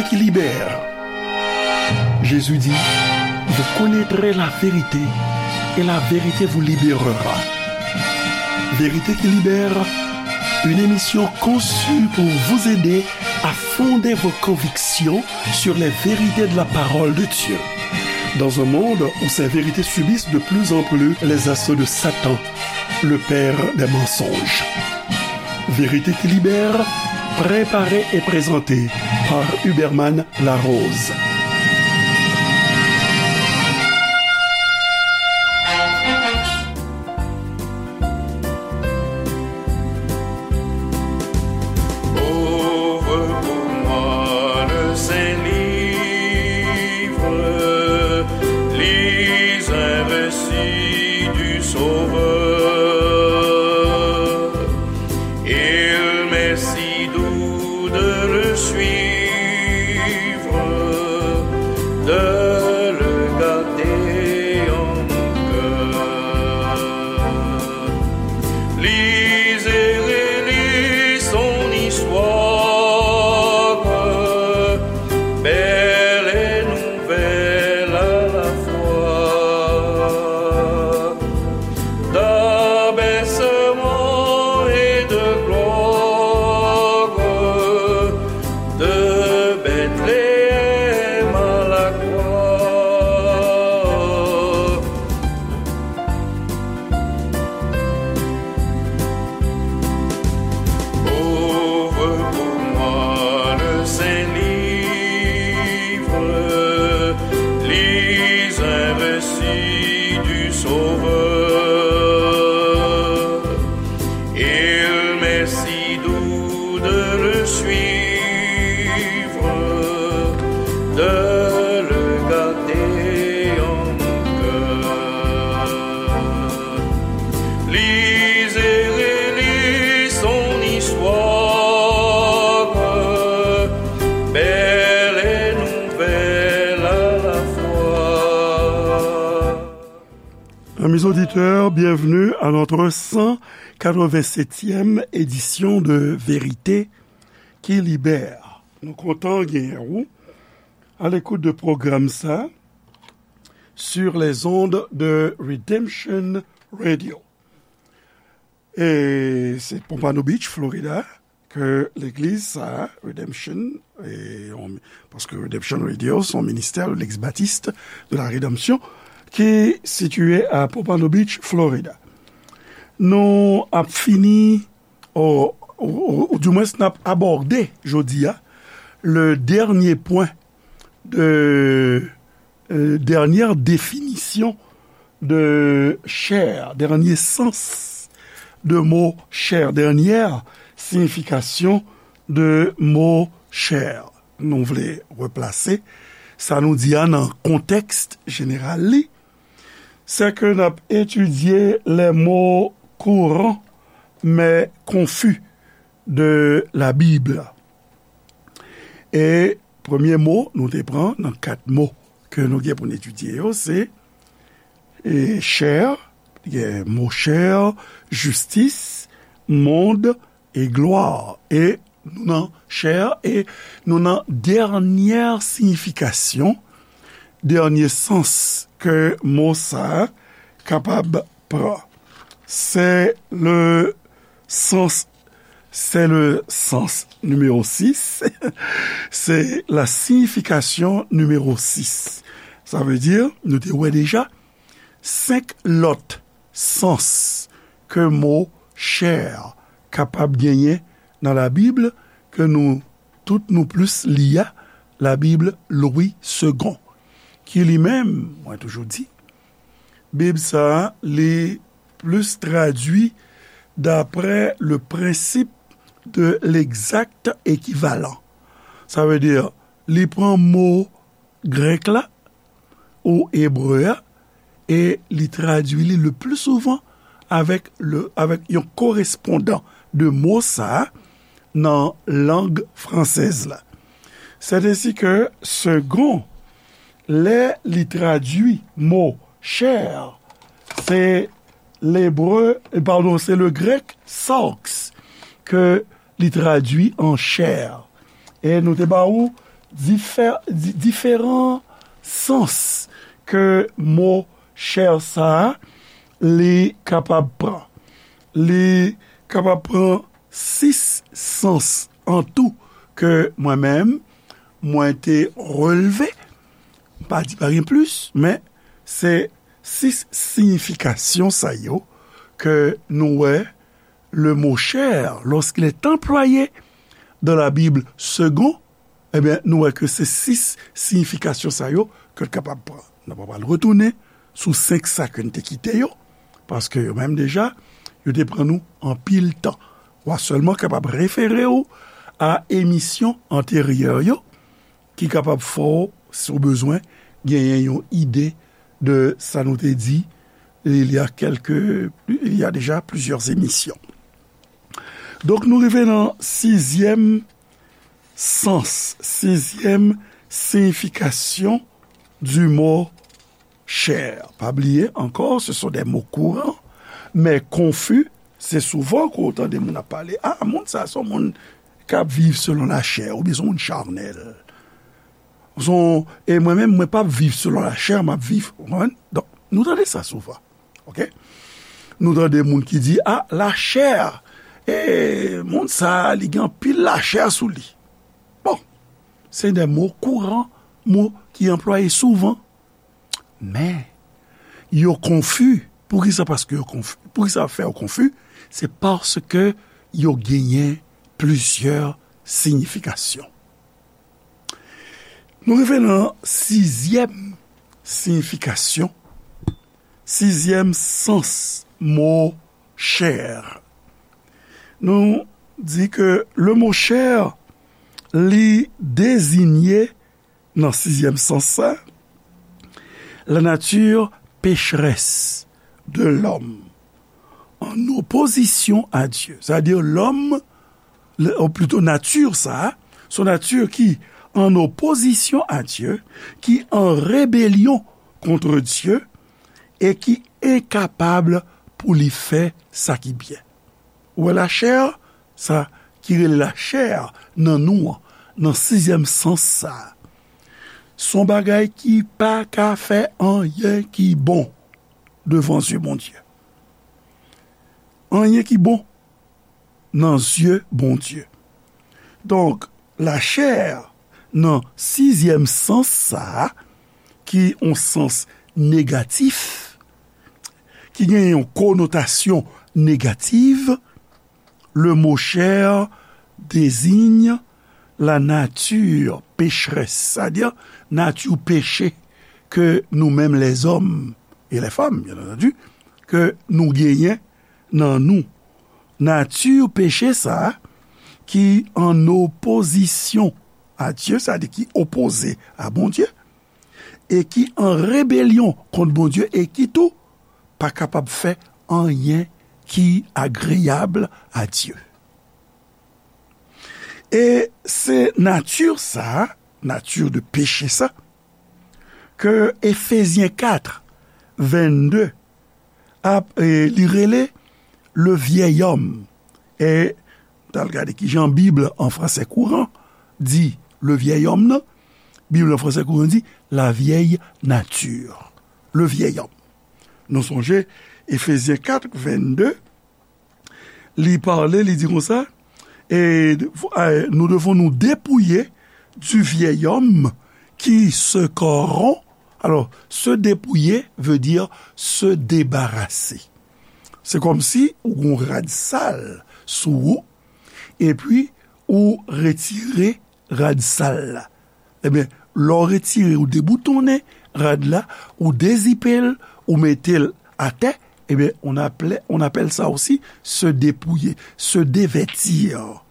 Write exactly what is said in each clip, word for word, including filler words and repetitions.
qui libère. Jésus dit, vous connaîtrez la vérité et la vérité vous libérera. Vérité qui libère, une émission conçue pour vous aider à fonder vos convictions sur les vérités de la parole de Dieu. Dans un monde où ces vérités subissent de plus en plus les assauts de Satan, le père des mensonges. Vérité qui libère, préparée et présentée par Huberman Larose. Ouvre pour moi le saint livre, lis un récit du Sauveur. Il m'est si doux de le suivre, de le garder en mon cœur. Lis et relis son histoire, belle et nouvelle à la fois. D'abaissement et de gloire, de Bethléem à la croix. Ouvre pour moi le saint livre, lis un récit du Sauveur. Il m'est si doux de le suivre, de le garder en mon cœur. Lis et relis son histoire, belle et nouvelle à la fois. Amis auditeurs, bienvenue à notre cent quatre-vingt-septième édition de Vérité qui libère. Nou kontan genyen ou à l'écoute de pwogram sa sur les ondes de Redemption Radio. E se Pompano Beach, Florida, ke legliz sa, Redemption, e on, paske Redemption Radio se yon ministè de l'ex-baptiste de la rédemption ki sitiye a Pompano Beach, Florida. Nou ap fini, o, o, o, o di mwens n ap abòde jodi a, le dènye pwen de, euh, dènyè definisyon de chè, dènye sans de mo chè, dènyè siyifikasyon de mo chè. Nou vle replase sa nou di a nan kontèks jeneral li, se ke n ap etidye les mots courants mais confus de la Bible. E premye mo nou te pran nan kat mo ke nou gen pou n etidye yo, se, e, chè, gen mo chè, jistis, mond e glwa. E nou nan chè, e nou nan dènyè siyifikasyon, dènye sans ke mo sa a kapab pran. Se le sans, se le sans nimewo sis, se la siyifikasyon nimewo sis. Sa vle di, nou te wè deja, senk lòt sans ke mo chè kapab genyen nan Labib, ke nou tout nou plis li a, Labib Louis Segond, ki li menm, mwen toujou di, Bib sa a, li plis tradui d'après le principe de l'exact équivalent. Sa vle di, li pran mo grèk la ou ebre a, e li tradui li le pli souvan avèk le, avèk yon korespondan de mo sa a nan lang fransèz la. Sètesi ke Segond, lè li tradui mo chè, se lebre, padon, se le grèk sarx ke li tradui an chè. E nou te ba ou difè, di, diferan sans ke mo chè sa a, li kapab pran. Li kapab pran sis sans an tou ke mwen menm, mwen te relve. Pa di pa gen plis, men se sis siyifikasyon sa yo ke nou wè le mot chair, lorsqu'il est employé dans la Bible seconde, ebyen, nou wè ke se sis siyifikasyon sa yo ke l kapab pran. Nou pa pral retounen sou senk sa ke n te kite yo, paske yo menm deja, yo te pran nou anpil tan. W a sèlman kapab refere w a emisyon anteryè yo, ki kapab fè w, si w bezwen, genyen yon ide de sa nou te di, il y a quelques, il y a déjà plusieurs émissions. Donk, nou rive nan sizyèm sans, sizyèm siyifikasyon du mot chair. Pa bliye ankò, ce sont des mots courants, mais confus. Se souvan ke w tande moun ap pale, ah, moun sa, se yon moun k ap viv selon lachè, oubyen se yon moun chanèl. Se yon, e mwen menm, mwen p ap viv selon lachè, m ap viv, w konprann? Donk, nou tande sa souvan. Oke? Nou tande moun ki di, ah, lachè, e moun sa, li gen anpil lachè sou li. Bon, se de mo kouran, mo ki anplwaye souvan. Men, yo konfi. Poukisa? Paske yo konfi. Poukisa fè yo konfi? Se paske yo genyen plizyè siyifikasyon. Nou rive nan sizyèm siyifikasyon, sizyèm sans mo chair. Nou di ke le mo chair, li dezinye nan sizyèm sans sa, la nature pécheresse de l'homme en opposition à Dieu. Sètadi, lòm, le- ou plito nati sa, se yon nati ki an opozisyon a Dye, ki an rebelyon kont Dye, e ki enkapab pou li fè sa ki byen. Ou wè lachè, sa ki rele lachè nan nou an, nan sizyèm sans sa, se yon bagay ki pa ka fè anyen ki bon devan zye Bondye. Anyen ki bon nan zye Bondye. Donk, lachè nan sizyèm sans sa a, ki yon sans negatif, ki gen yon konotasyon negatif, le mot chair désigne la nature pécheresse, sètadi nati peche ke nou menm lèzòm e lèfanm, byen antandi, ke nou genyen nan nou. Nati peche sa a ki an opozisyon a Dye, sètadi ki opoze a Bondye, e ki an rebelyon kont Bondye, e ki tou pa kapab fè anyen ki agreyab a Dye. E se nati sa a, nati de peche sa, ke Efezyen kat, vennde ap, e, li rele le vieil homme. E, n al gade ki jan Bib an fransè kouran di le vieil homme nan. Bib an fransè kouran di la vieille nature. Le vieil homme. Nou sonje, Efezyen kat, vennde, li pale, li di konsa, e, e, nous devons nous dépouiller du vieil homme qui se corrompt. Alors, se dépouiller veut dire se débarrasser. Se kòmsi ou gon rad sal sou ou, epi ou retire rad sal la. Ebyen, lè w retire, ou deboutonnen rad la, ou dezipe l, ou mete l atè, ebyen, on appelle, on appelle ça aussi se dépouiller, se dévêtir,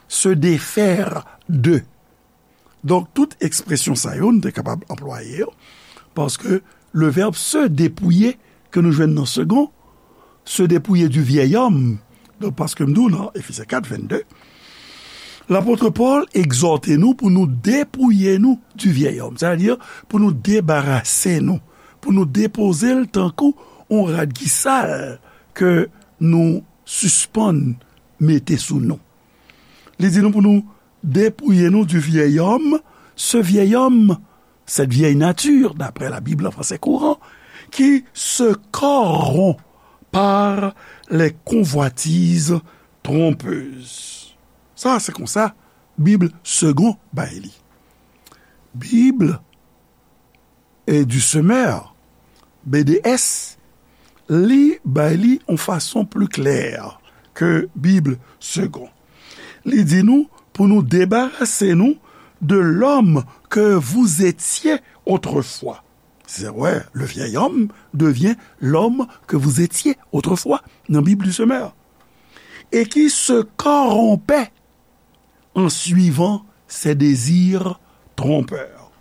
se défaire de. Donk, tout ekspresyon sa yo, nou te kapab anplwaye yo, paske le verbe se dépouiller ke nou jwenn nan Segond, se dépouiller du vieil homme. Donk, paske m di w nan Efezyen kat, vennde, lapot Pòl egzòte nou pou nou depouye nou du vieil homme, sètadi pou nou debarase nou, pou nou depoze l tankou yon rad ki sal ke nou sispann mete sou nou. Li di nou pou nou dépouiller nous du vieil homme ce vieil homme, cette vieille nature, d'après la Bible en français courant, qui se corrompt par les convoitises trompeuses. Sa, se konsa Bib Segond bay li. Bib e du Semeur, B D S, li bay li yon fason pli klè ke Bib Segond. Li di nou pou nou debarase nou de l'homme que vous étiez autrefois. C'est vrai, le vieil homme devient l'homme que vous étiez autrefois nan Bib du Semeur. Et qui se corrompait en suivant ses désirs trompeurs.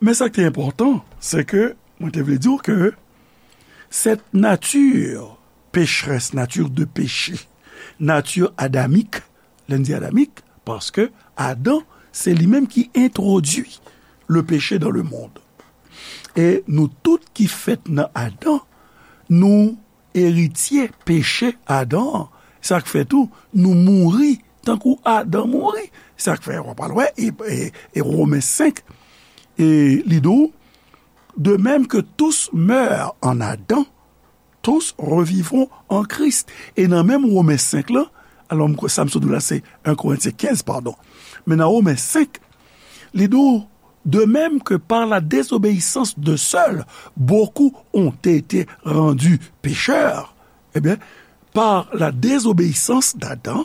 Men sa ki te enpòtan, se ke mwen te vle di w ke cette nature pécheresse, nature de péché, nature adamique, lè n di adamik, paske Adan, se li menm ki entwodui le péché dans le monde. E nou tout ki fèt nan Adan, nou eritye peche Adan an. Sa k fè tou, nou mouri tankou Adan mouri. Sa k fè, w ap al wè, e, e, e Women senk, e li di w, de même que tous meurent en Adam, tous revivront en Christ. E nan menm Women senk lan, alò, m kwè sa m sot di w la, se en Korentyen kenz, padon. Men nan Women senk, li di w, de même que par la désobéissance de seul, beaucoup ont été rendus pécheurs. Eh bien, par la désobéissance d'Adam,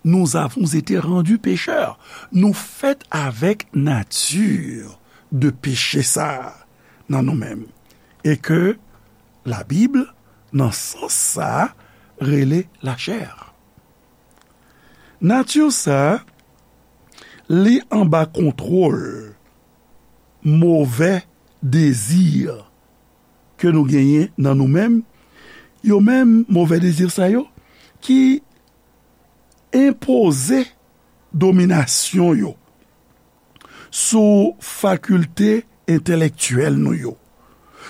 nous avons été rendus pécheurs. Nou fèt avèk nati de peche sa a nan nou menm. E ke Labib, nan sans sa a, rele lachè. Nati sa a, li anba kontwòl movè dezi ke nou genyen nan nou menm, yo menm, movè dezi sa yo, ki enpoze dominasyon yo sou fakilte entelektyèl nou yo,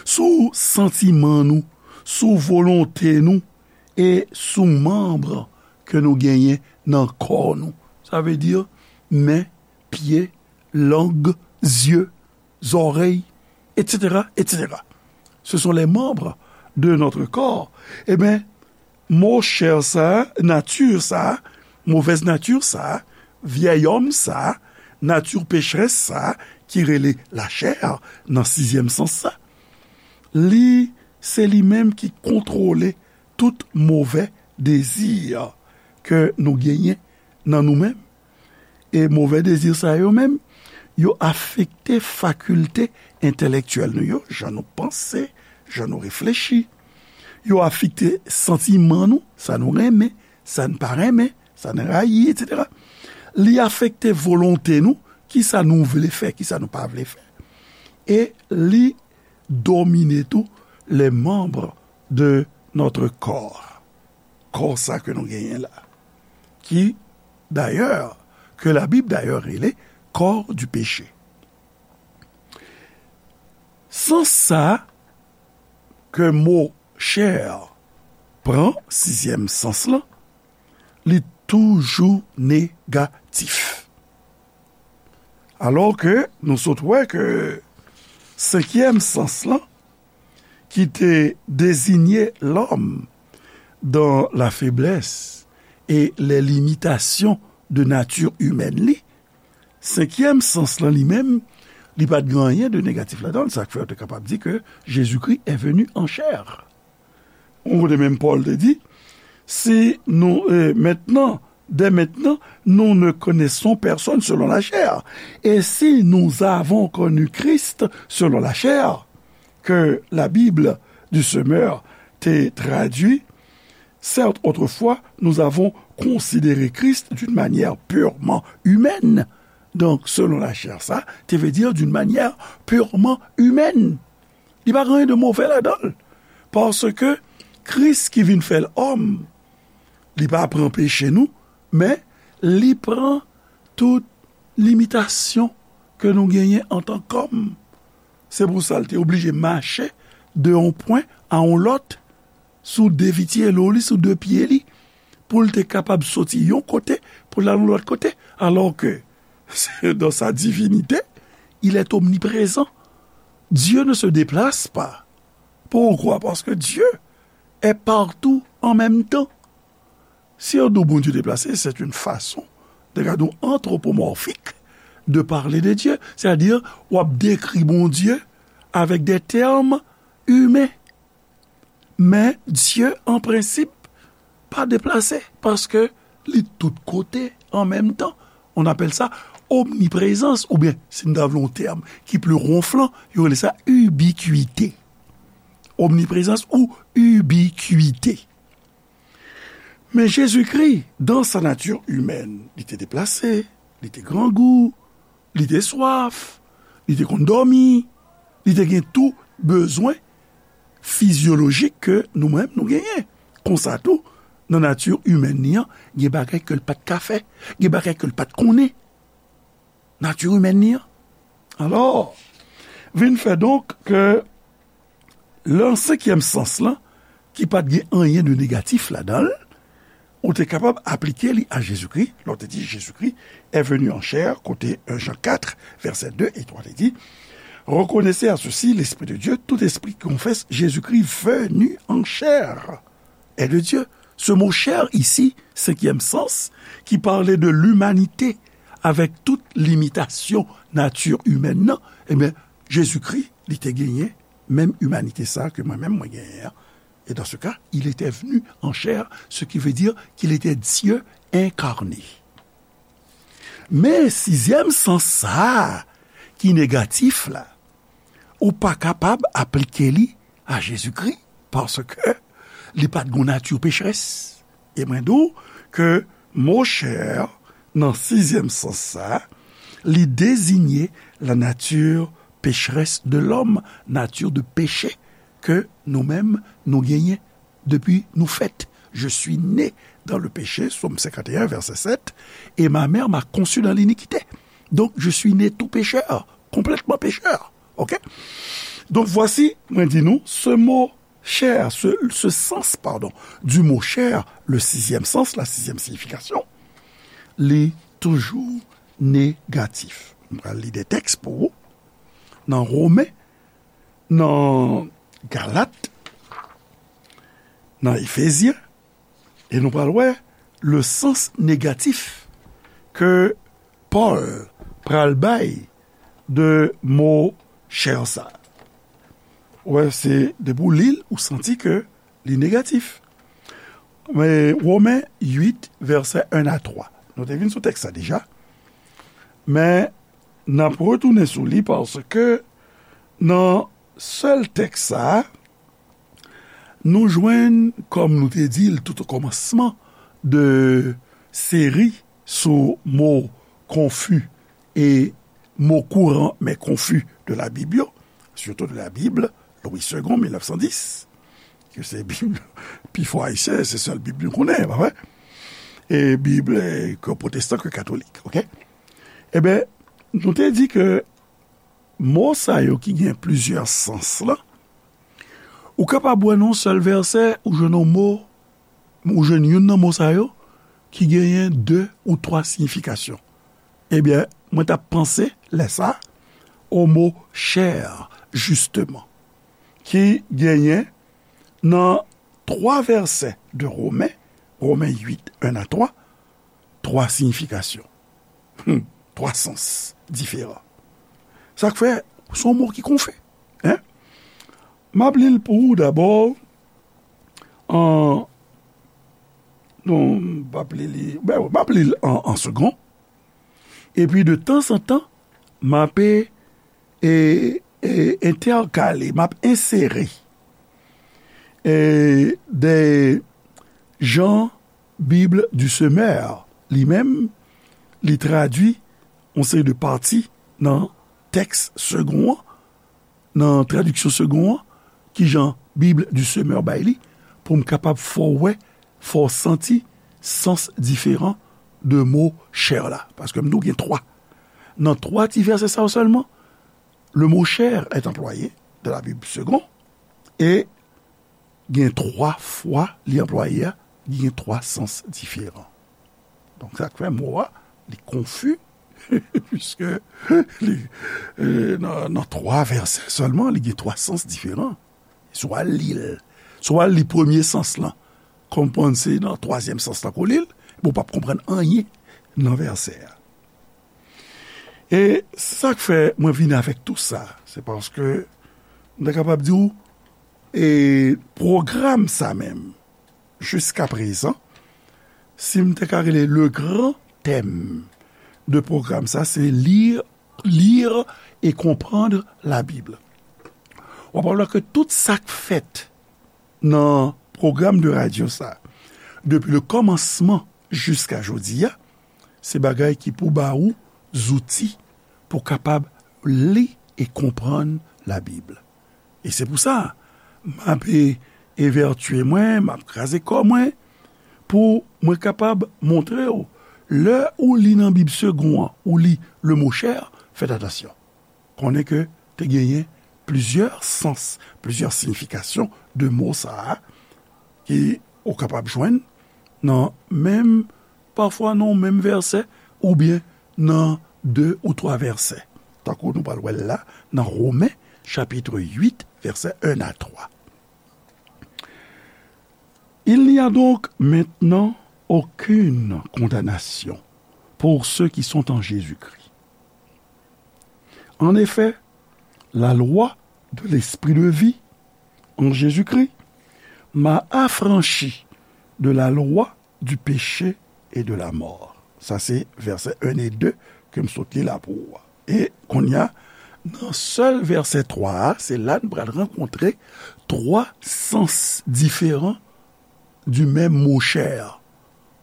sou santiman nou, sou volonte nou e sou manm ke nou genyen nan kò nou. Sa vle di men, pye, lang, zye, zòrèy, et cetera, et cetera. Ce sont les membres de notre corps. Eben, mo chè sa, nati sa, movèz nati sa, vyèy òm sa, nati pecherès sa, ki rele lachè nan sizyèm sans sa, li, se li menm ki kontwole tout movè dezi ke nou genyen nan nou menm. E movè dezi sa yo menm, yo afekte fakilte entelektyèl nou yo, jan nou panse, jan nou reflechi. Yo afekte santiman nou, sa nou renmen, sa n pa renmen, sa n rayi, et cetera. Li afekte volonte nou, kisa nou vle fè, kisa nou pa vle fè. E li domine tou les membres de notre corps. Kò sa ke nou genyen la. Ki, dayè, ke Labib dayè rele corps du péché. Sans sa ke mo chè pran, sizyèm sans lan, li toujou negatif. Alò ke nou sot wè ke senkyèm sans lan, ki te dezinye lòm dans la faiblesse et les limitations de nature humaine li, senkyèm sans lan li menm, li pa t gen anyen de negatif ladan l, sa k fè yo te kapab di ke Jésus-Christ est venu en chair. Yon kote menm Pòl te di, si nou, euh, maintenant, dès maintenant, nous ne connaissons personne selon la chair. Et si nous avons connu Christ selon la chair, que la Bible du Semeur te tradui, certes, autrefois, nous avons considéré Christ d'une manière purement humaine. Donc, selon la chair, sa, te vle di d'une manière purement humaine. Li pa gen anyen de move ladan l. Paske Kris ki vin fè l òm, li pa pran peche nou, men li pran tout limitasyon ke nou genyen antan kòm. Se pou sa l te oblije mache de yon pwen a yon lòt sou de vitye lo li, sou de pye li, pou l te kapab soti yon kote pou l al yon lòt kote. Alò ke Dans sa divinité, il est omniprésent. Dieu ne se déplace pas. Pourquoi? Parce que Dieu est partout en même temps. Si on dit Bondye deplase, c'est une façon de gade antropomorphik de parler de Dieu. C'est-à-dire, w ap dékri Bondye avec des termes humains. Men Dye, an prensip, pa deplase, paske li tout kote an menm tan. On appelle ça omniprésence, oubyen, si n ta vle yon tèm ki pli wonflan, yo rele sa ubiquité. Omniprésence ou ubiquité. Men Jezikri, dans sa nature humaine, li te deplase, li te grangou, li te swaf, li te konn dòmi, li te gen tou bezwen fizyolojik ke nou menm nou genyen. Konsa tou, nan nati imèn li an, gen bagay ke l pa t ka fè, gen bagay ke l pa t konnen. Nati imèn li an. Alò, vin fè donk ke lan senkyèm sans lan, ki pa t gen anyen de negatif ladan l, ou te kapab aplike li a Jezikri, lè w te di Jezikri est venu en chair, kote un Jean quatre, verset deux et trois te di, reconnaissez à ceci l'Esprit de Dieu, tout esprit qui confesse Jésus-Christ venu en chair est de Dieu. Ce mot chair ici, cinquième sens, qui parlait de l'humanité avec toute limitation nature humaine, nan, ebyen, Jezikri, li te genyen menm imanite sa ke mwen menm mwen genyen an. Et dans ce cas, il était venu en chair, ce qui veut dire qu'il était Dieu incarné. Men sizyèm sans sa a ki negatif la, ou pa kapab aplike li a Jezikri, paske li pa t gon nati pecherès. E mwen di w ke mo chair, nan sizyèm sans sa, li dezinye la nature pécheresse de l'homme, nati de peche ke nou menm nou genyen depi nou fèt. Je suis né dans le péché, Psaume cinquante et un, verset sept, et ma mère m'a conçu dans l'iniquité. Donc, je suis né tout pécheur, complètement pécheur. Ok? Donc, voici, mwen di nou, ce mot chair, ce, ce sens, pardon, du mot chair, le sixième sens, la sixième signification, li toujou negatif. Mwen pral li de tèks pou ou. Nan Women, nan Galat, nan Efezyen, e nou pral wè le sans negatif ke Pòl pral bay de mo chair sa. Wè, se depi w li l, ou santi ke li negatif. Men, Women uit, vèsè en a twa. Nou te vin sou tèks sa deja. Men, n ap retounen sou li paske nan sèl tèks sa a, nou jwenn, kòm nou te di l tout o kòmansman de seri sou mo konfi e mo kouran men konfi de la Bib yo, surtout de la Bible, Louis Segond, mil nèf san dis, ke se Bib pi fò ayisyen, se sèl Bib nou konnen, pa vre? E Bib, eh, ke pwotestan, ke katolik, ok? Ebyen, nou te di ke mo sa yo ki gen plizyè sans lan, ou kapab wè nan yon sèl vèsè, ou jwenn yon mo, ou jwenn youn nan mo sa yo, ki genyen de ou twa siyifikasyon. Ebyen, mwen t ap panse, lè sa, o mo chair, jisteman, ki genyen nan twa vèsè de Women, Women uit, en a twa, twa siyifikasyon. Hmm, twa sans diferan. Sa k fè, se yon mo ki konfi. Hein? M ap li l pou ou dabò, an, non, m p ap li li, ben, m ap li l an, an segond. Epi de tanzantan, m ap, e, e, e, entèkale, m ap ensere, e, de jan Bible du Semeur, li menm, li tradui yon seri de pati nan tèks segond an, nan tradiksyon segond an, kijan Bible du Semeur bay li, pou m kapab fè w wè, fè w santi sans diferan de mo chair la. Paske m di w gen twa. Nan twa ti vèsè sa yo sèlman, le mot chair est employé dans la Bible Segond, e gen twa fwa li anplwaye a, li gen twa sans diferan. Donk, sa k fè mo a, li konfi, Piske li, e, nan, nan twa vèsè sèlman, li gen twa sans diferan. Si w al li l, si w al li premye sans lan, konprann se nan twazyèm sans lan ke w li l, men w p ap konprann anyen nan vèsè a. E se sa k fè mwen vin avèk tou sa, se paske m ta kapab di w, e pwogram sa menm, jiskaprezan, si m te ka rele le grand thème de pwogram sa, se lire, lire et comprendre la Bible. W ap wè ke tout sa k fèt nan pwogram de radyo sa, depi le kòmansman jiska jodi a, se bagay ki pou ba ou zouti pou kapab li e konprann Labib. E se pou sa, m ap e, evètye mwen, m ap kraze kò mwen, pou mwen kapab montre w, lè ou li nan Bib Segond an, ou li le mot chair, fèt atansyon. Konnen ke te genyen plizyè sans, plizyè siyifikasyon de mo sa a, ki ou kapab jwenn nan menm, pafwa nan menm vèsè, oubyen nan de ou twa vèsè. Tankou nou pral wè l la, nan Women, chapit uit, vèsè en a twa. Il n'y a donc maintenant aucune condamnation pour ceux qui sont en Jésus-Christ. En effet, la loi de l'esprit de vie en Jésus-Christ m'a affranchi de la loi du péché et de la mort. Sa se vèsè en e de ke m sot li la pou ou a. E kounye a, nan sèl vèsè twa a, se la n pral rankontre twa sans diferan du menm mo chair.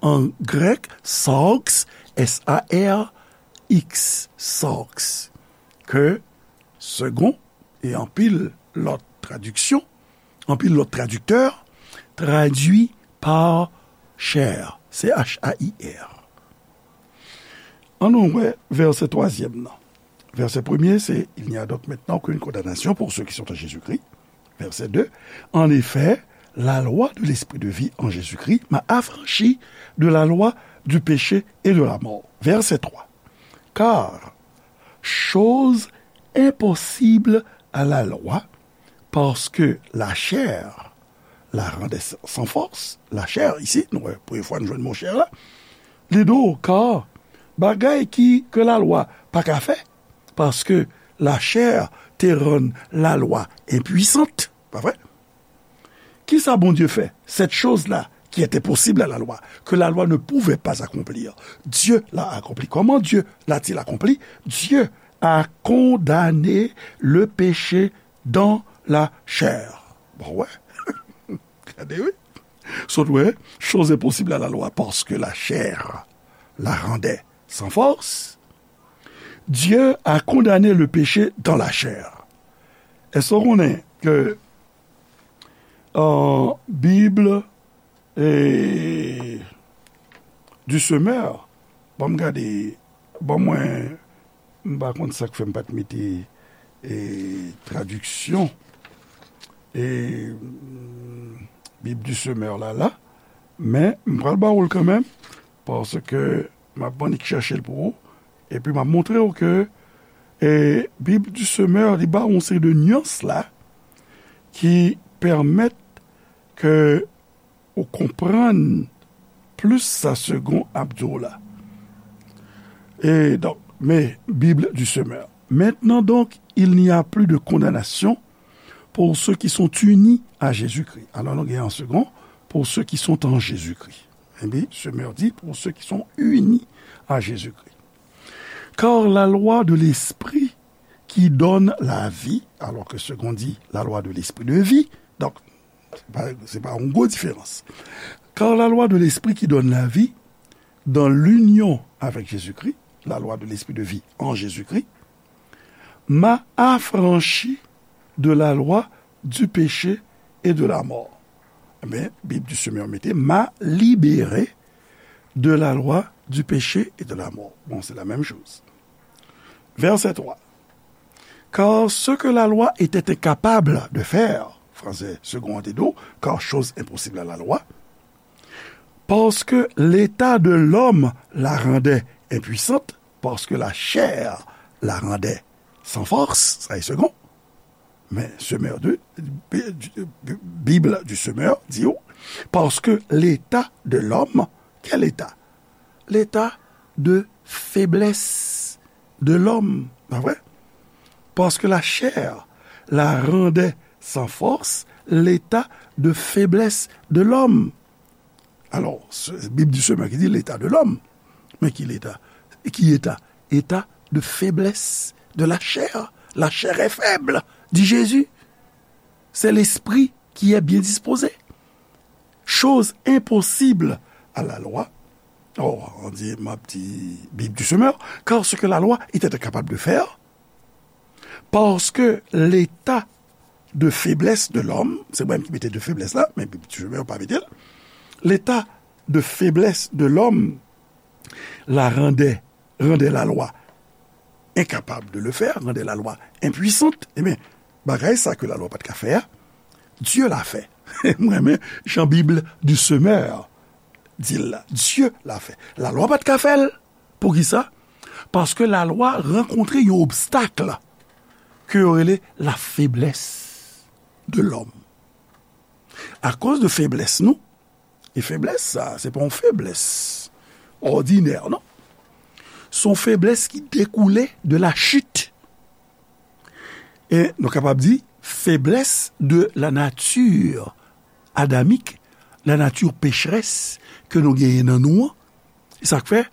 An grèk, sarx, S A R X, sarx, ke Segond e anpil lòt tradiksyon, anpil lòt tradiktè tradui pa chair, C H A I R. Ann nou wè vèsè twazyèm nan. Vèsè premye, se, Il n'y a donc maintenant aucune condamnation pour ceux qui sont en Jésus-Christ. Verset deux, En effet, la loi de l'esprit de vie en Jésus-Christ m'a affranchi de la loi du péché et de la mort. Verset trois, Car chose impossible à la loi, parce que la chair la rendait sans force. La chair, isi, nou wè, premye fwa nou jwenn mo chair la. Li di w, car bagay ki, ke lalwa pa ka fè, paske la chair te rann lalwa enpwisant, pa vre? Kisa Bondye fè? Cette chose-là qui était possible à la loi, que la loi ne pouvait pas accomplir, Dieu l'a accompli. Comment Dieu l'a-t-il accompli? Dieu a condamné le péché dans la chair. Bon, wè. Gade, wi. Sot wè, chose est possible à la loi parce que la chair la rendait sans force. Dieu a condamné le péché dans la chair. Èske w konnen ke, euh, Bible e, du Semeur, ban m gade, ban mwen, m pa konn sa k fè m pa t mete, e, tradiksyon, e, mm, Bib du Semeur la, la, men m pral ba ou l kanmenm, paske m ap annik chèche l pou ou, epi m ap montre w ke, e, Bib du Semeur, li ba w yon seri de nyans la, ki pèmèt ke ou konprann plis sa Segond ap di w la. Et donc, mais, Bible du Semeur. Maintenant donc, il n'y a plus de condamnation pour ceux qui sont unis à Jésus-Christ. Alors, nou gen an Segond, pour ceux qui sont en Jésus-Christ. Epi, Semeur di, pour ceux qui sont unis à Jésus-Christ. Car la loi de l'esprit qui donne la vie, alors que Segond di la loi de l'esprit de vie, donk, se pa, se pa yon gwo diferans. Car la loi de l'esprit qui donne la vie dans l'union avec Jésus-Christ, la loi de l'esprit de vie en Jésus-Christ, m'a affranchi de la loi du péché et de la mort. Ebyen, Bib du Semeur mete, m'a libéré de la loi du péché et de la mort. Bon, c'est la même chose. Verset trois. Car ce que la loi était incapable de faire, fransè Segond an te di w, car chose impossible à la loi, parce que l'état de l'homme la rendait impuissante, Paske la chè la randè san fòs, sa e segon. Men Semeur de, Bible du Semeur di w, paske leta de lòm, kèl eta? Leta de feblès de lòm, pa vre? Paske la chè la randè san fòs leta de feblès de lòm. Alò, se Bib di Semeur ki di leta de lòm. Men ki leta? Ki eta? Eta de feblès de la chè. La chair est faible, di Jezi. Se lespri ki est bien disposé. Chose impossible à la loi. Oh, on dit, m ap di Bib di Semeur, car ce que la loi était incapable de faire, parce que l'état de faiblesse de l'homme, se mwen ki mete de feblès la, men Bib di Semeur pa mete l, l'état de faiblesse de l'homme la randè, randè la lwa incapable de le faire, randè la lwa impuissante, ebyen, bagay sa ke la lwa pa t ka fè a, Dieu l'a fait. M renmen jan Bib di Semeur di l la. Dieu l'a fait. La lwa pa t ka fè l. Poukisa? Paske la lwa rankontre yon obstak ke yo rele la feblès de lòm. Akoz de feblès nou, e feblès sa, se pa yon feblès òdinè, non. Se yon feblès ki dekoule de la chit. E nou kapab di, feblès de la nature adamique, la nature pécheresse ke nou genyen nan nou an. E sa k fè,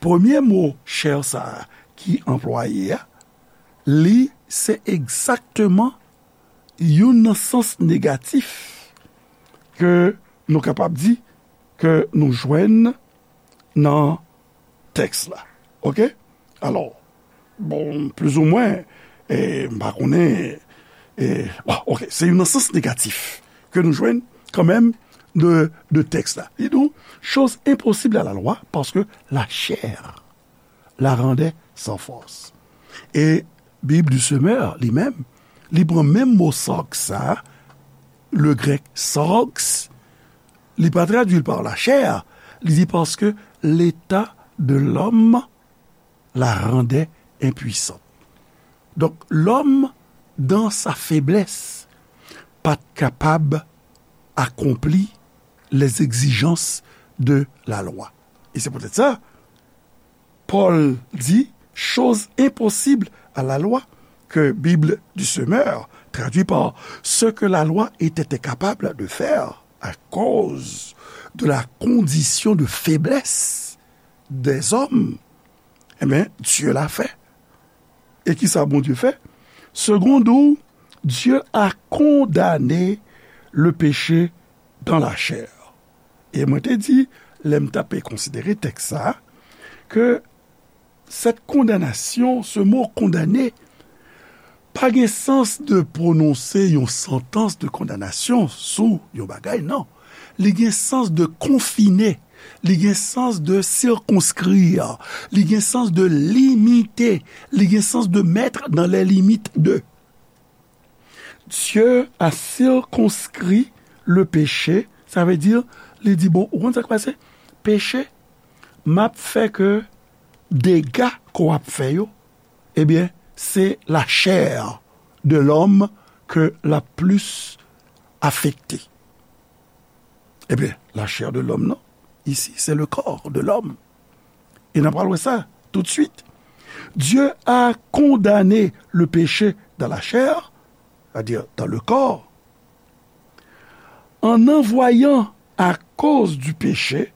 premye mo chè sa a ki anplwaye a, li se egzakteman youn nan sans negatif ke nou kapab di ke nou jwenn nan tèks la. Oke? Alò, bon, plizoumwen, e, m pa konnen, e, bon, oke, se youn nan sans negatif ke nou jwenn kanmenm de, de tèks la. Li di w, chose impossible à la loi, parce que la chair la rendait sans force. E Bib di Semeur, li menm, li pran menm mo sarx sa, le grèk sarx, li pa tradui l pa la chè, li di paske leta de lòm la rendait impuissant. Donk, lòm, dans sa faiblesse, pa t kapab akonpli les exigences de la loi. E se poutèt sa, Pòl di, chose impossible à la loi, que Bible du Semeur traduit par ce que la loi était incapable de faire à cause de la condition de faiblesse des hommes, eh bien, Dieu l'a fait. E ki sa Bondye fè? Seconde, Dieu a condamné le péché dans la chair. E mwen te di, lè m t ap konsidere tèks sa a, ke cette condamnation, ce mot condamné, pa gen sans de pwononse yon santans de kondanasyon sou yon bagay, non. Li gen sans de confiner, li gen sans de circonscrire, li gen sans de limiter, li gen sans de mettre dans les limites de. Dieu a circonscrit le péché, sa vle di, li di, bon, ou konn sa k pase? Peche, m ap fè ke dega ke w ap fè yo, ebyen, se la chair de l'homme ke l ap plis afekte. Ebyen, la chair de l'homme, non. Ici, c'est le corps de l'homme. E n ap pral wè sa tout de suite. Dieu a condamné le péché dans la chair, c'est-à-dire dans le corps, en envoyant à cause du péché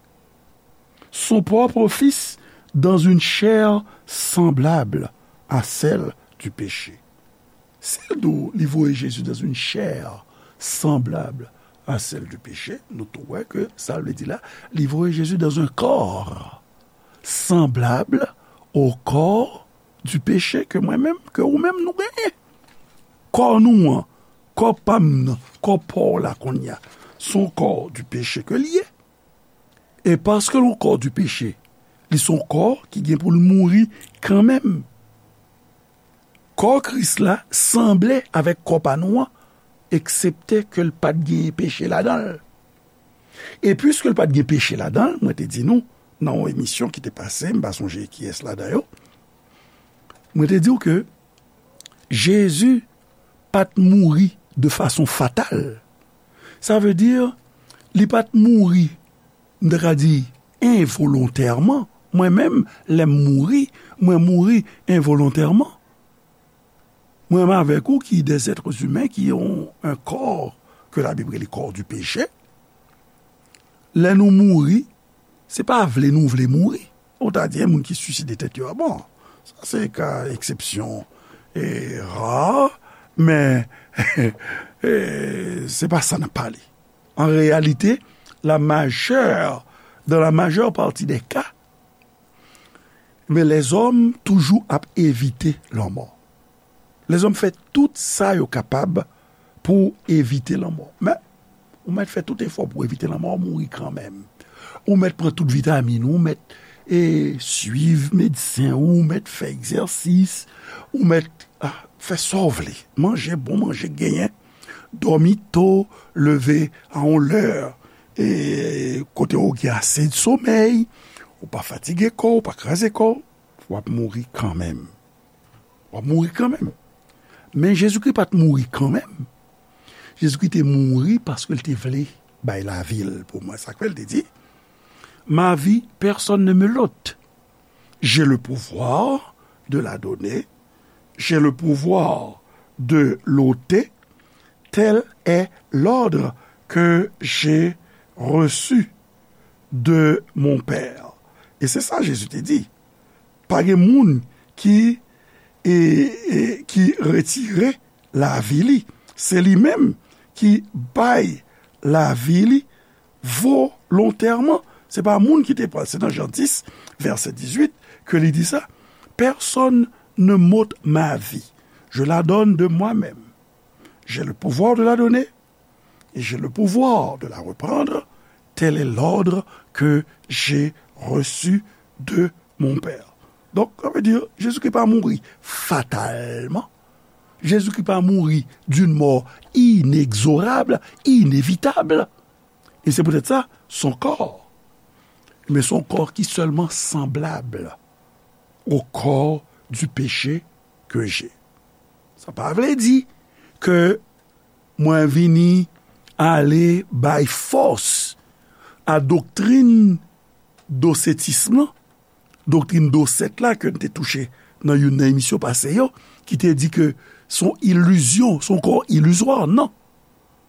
son propre Fils dans une chair semblable à celle du péché. Si l di w li voye Jezi dans une chair semblable à celle du péché, nou tou wè ke sa l vle di la, li voye Jezi dans un corps semblable au corps du péché ke mwen menm, ke ou menm nou genyen. Kò nou an, kò pa m nan, kò pa w la kounye a, se yon kò du péché ke l ye. E paske l yon kò du péché, li se yon kò ki gen pou l mouri kanmenm. Kò Kris la sanble avèk kò pa nou an, eksepte ke l pa t genyen peche ladan l. E piske l pa t gen peche ladan l, mwen te di nou, nan yon emisyon ki te pase, m pa sonje kiyès ladan yo, Mwen te di w ke Jezi pa t mouri de fason fatal. Sa vle di, li pa t mouri, m ta ka di, envolontèman. Mwen menm, lè m mouri, mwen mouri envolontèman. Mwen menm avèk ou ki des êtres humains, ki yon, un corps que la Bible rele corps du péché. Lè nou mouri, se pa vle nou vle mouri. Ou ta di, yon moun ki siside tèt yo, a bon, sa se ka eksepsyon e ra, men e, se pa sa n ap pale. An reyalite, la majeure, dans la majeure partie des cas, men lèzòm toujou ap evite lanmò. Lèzòm fè tout sa yo kapab pou evite lanmò. Men, ou mèt fè tout efò pou evite lanmò, ou mouri kanmenm. Ou mèt pran tout vitamin ou, ou mèt e, swiv medsen ou, ou mèt fè egzèsis, ou mèt a, fè sa w vle. Manje bon manje genyen, dòmi to, leve a yon lè e, kote w gen ase somèy, ou pa fatige kò w, ou pa kraze kò w, w ap mouri kanmenm. W ap mouri kanmenm. Men Jezikri pa t mouri kanmenm. Jezikri te mouri paske l te vle bay lavi l pou mwen. Sa k fè l te di, Ma vie, personne ne me l'ôte. J'ai le pouvoir de la donner, j'ai le pouvoir de l'ôter, tel est l'ordre que j'ai reçu de mon Père. E se sa Jezi te di. Pa gen moun ki, e, e, ki retire lavi li. Se li menm ki bay lavi li volontèman. Se pa moun ki te pran l. Se nan Jan dis, vèsè dizuit, ke li di sa. Personne ne m'ôte ma vie. Je la donne de moi-même. J'ai le pouvoir de la donner et j'ai le pouvoir de la reprendre. Tel est l'ordre que j'ai reçu de mon Père. Donk, sa vle di, Jezikri pa mouri fatalman. Jezikri pa mouri d'une mort inexorable, inévitable. E se poutèt sa, son corps, men son corps ki sèlman sanblab au corps du péché que j'ai. Sa pa vle di ke mwen vini ale bay fòs a doktrin dosetis lan, doktrin dosèt la ke n te touche nan youn nan emisyon pase yo, ki te di ke se yon ilizyon, se yon kò ilizwa, non.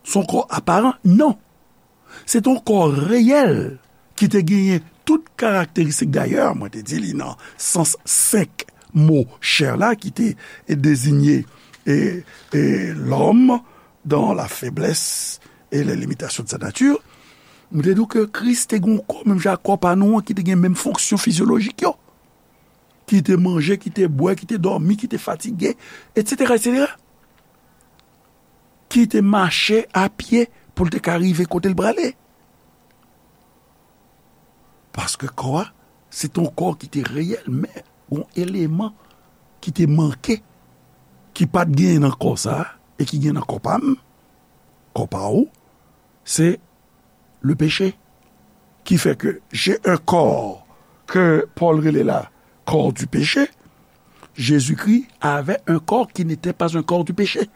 Se yon kò aparan, non. Se te yon kò reyèl ki te genyen tout karakteristik. Dayè, mwen te di li nan sans senk mo chè la ki te deziye e, e, lòm dans la faiblesse et les limitations de sa nature. Mwen te di w ke Kris te gen yon kò menm jan ak kò pa nou an, ki te gen menm fonksyon fizyolojik yo. Ki te manje, ki te bwè, ki te dòmi, ki te fatige, etsetera, etsetera. Ki te mache a pye pou l te ka rive kote l prale. Paske kò a, se te yon kò ki te reyèl, men yon eleman ki te manke, ki pa t genyen nan kò sa a, e ki gen nan kò pa m, kò pa ou, se le péché. Ki fè ke j'ai un corps que Paul rele la corps du péché, Jésus-Christ avait un corps qui n'était pas un corps du péché.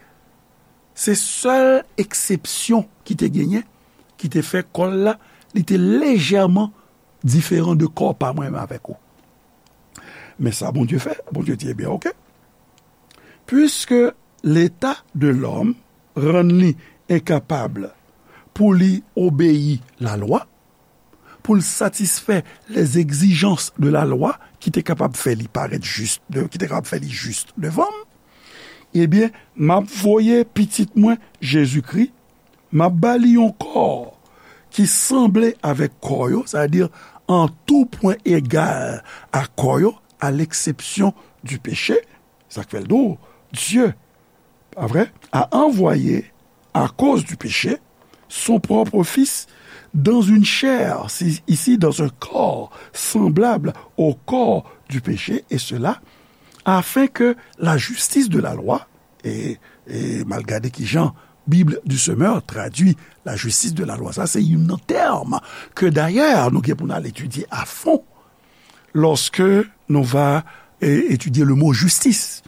Se sèl eksepsyon ki te genyen, ki te fè kò l la, li te lejèman diferan de kò pa mwen menm avèk ou. Men sa Bondye fè, Bondye di, ebyen, oke. Puisque l'état de l'homme rann li enkapab pou li obeyi lalwa, pou l satisfè les exigences de la loi ki te kapab fè li parèt jis, de, ki te kapab fè li jis devan m, ebyen, m ap voye pitit mwen, Jezikri, m ap ba li yon kò ki sanble avèk kò yo, sa vle di an tou pwen egal a kò yo, à l'exception du péché, sa k fè l di w, Dieu, pa vre, a envoyé, à cause du péché, son propre Fils dans une chair, si- ici dans un corps semblable au corps du péché, et cela afin que la justice de la loi, e, e m al gade ki jan Bib du Semeur tradui la justice de la loi, sa se youn nan tèm ke dayè nou gen pou n al etidye a fon lòske nou va et étudier le mot justice,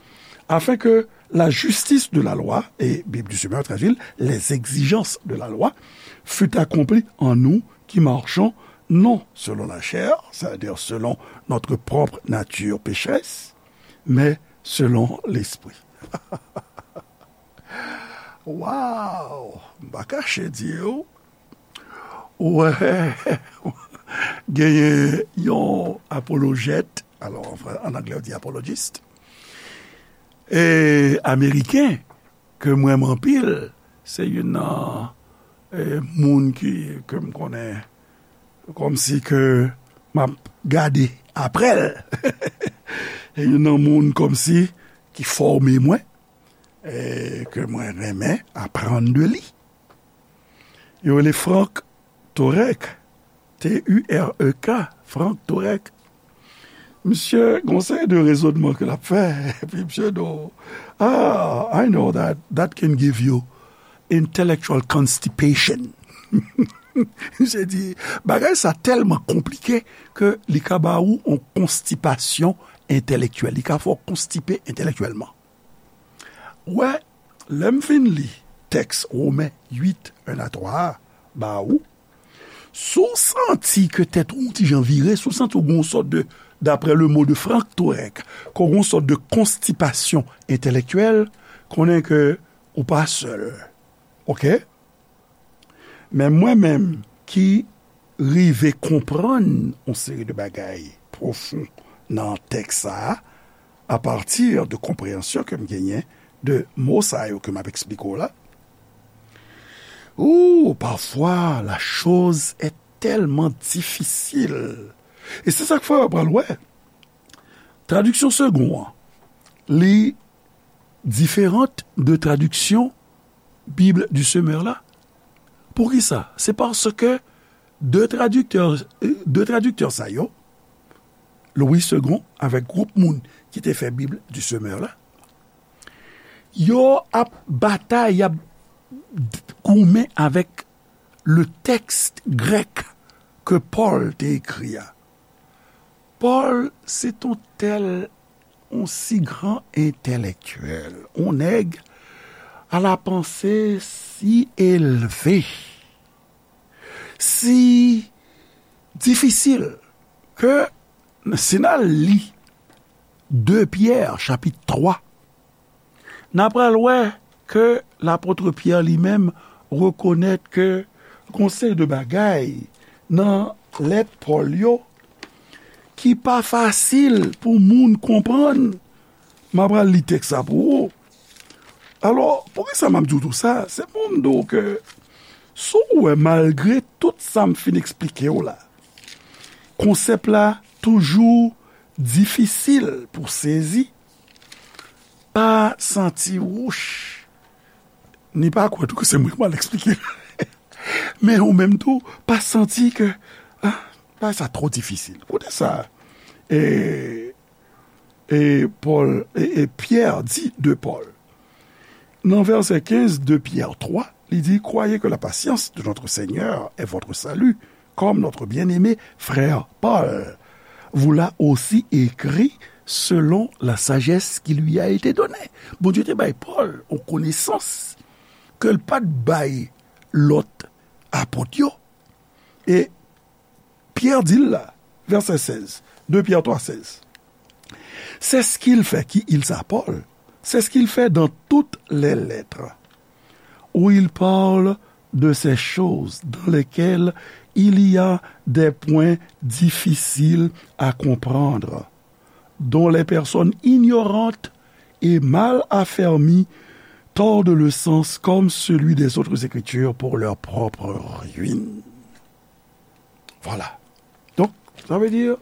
afin que la justice de la loi, et Bible du Semeur traduit les exigences de la loi, fût accomplie en nous qui marchons non selon la chair, c'est-à-dire selon notre propre nature pécheresse, mais selon l'esprit. Wow! M pa kache di w, wè, genyen yon apolojèt, alò, an fran-, an anglè, yo di apologist, e, ameriken, ke m renmen anpil, se youn nan, e, moun ki, ke m konnen kòmsi ke m ap gade apre l. E youn nan moun kòmsi ki fòme mwen, e, ke mwen renmen aprann de li. Yo rele Frank Turek, T U R E K, Frank Turek. Misye gon seri de rezonman ke l ap fè, epi misye di w, "Ah, I know that, that can give you intellectual constipation." Misye di, "Bagay sa tèlman konplike ke li ka ba ou yon konstipasyon entèlektyèl, li ka fè w konstipe entèlektyèlman." Wè, lè m fin li tèks Women uit, en a twa a ba ou, si w santi ke tèt ou yon ti jan vire, si w santi w gen yon sòt de, d'après le mot de Frank Turek, ke w gen yon sòt de konstipasyon entèlektyèl, konnen ke ou pa sèl. Oke? Men mwen menm ki rive konprann yon seri de bagay pwofon nan tèks sa a, apati de konpreyansyon ke m genyen de mo sa yo ke m ap eksplike w la. Ou, parfois, la chose est tellement difficile. E se sa k fè w pral wè. Tradiksyon Segond an, li diferan de tradiksyon Bible du Semeur la. Poukisa? Se paske de tradiktè, de tradiktè sa yo, Louis Segond avèk gwoup moun ki te fè Bible du Semeur la, yo ap batay, y ap goumen avèk le tèks grèk ke Pòl te ekri a. Pòl, se t on tèl, on si gran entèlektyèl, on nèg à la pensée si élevée, si difisil, ke si n al li de Pyè, chapit twa, n a pral wè ke lapot Pyè li menm rekonèt ke gon seri de bagay nan lèt Pòl yo ki pa fasil pou moun konprann. M a pral li tèks sa pou ou. Alò, poukisa m ap di w tou sa? Se pou m di w ke, si w wè, malgre tout sa m fin eksplike w la, konsèp la toujou difisil pou sezi, pa santi wouch, ni pa kwè tou ke se mwen ki mal eksplike l. Men ou menm tou, pa santi ke, ah, bagay sa twò difisil. Koute sa, e, e Pòl, e, e Pyè di de Pòl. Nan vèsè kenz de Pyè twa, li di, "Croyez que la patience de notre Seigneur est votre salut, comme notre bien-aimé frère Paul vous l'a aussi écrit selon la sagesse qui lui a été donnée." Bondye te bay Pòl yon konesans ke l pa t bay lòt apot yo. E Pyè di l la, vèsè sèz, de Pyè twa sèz. C'est ce qu'il fait, qui il ça, Paul, c'est ce qu'il fait dans toutes les lettres, où il parle de ces choses dans lesquelles il y a des points difficiles à comprendre, dont les personnes ignorantes et mal affermies tordent le sens comme celui des autres écritures pour leur propre ruine. Voilà. Donc, ça veut dire,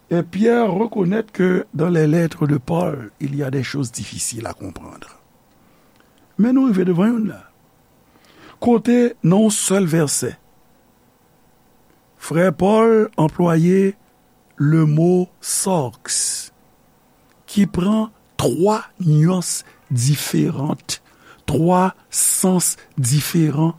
et Pierre reconnaît que dans les lettres de Paul, il y a des choses difficiles à comprendre. Men nou rive devan youn la. Kote, nan yon sèl vèsè, frè Pòl anplwaye le mo sarx, ki pran twa nyans diferan, twa sans diferan.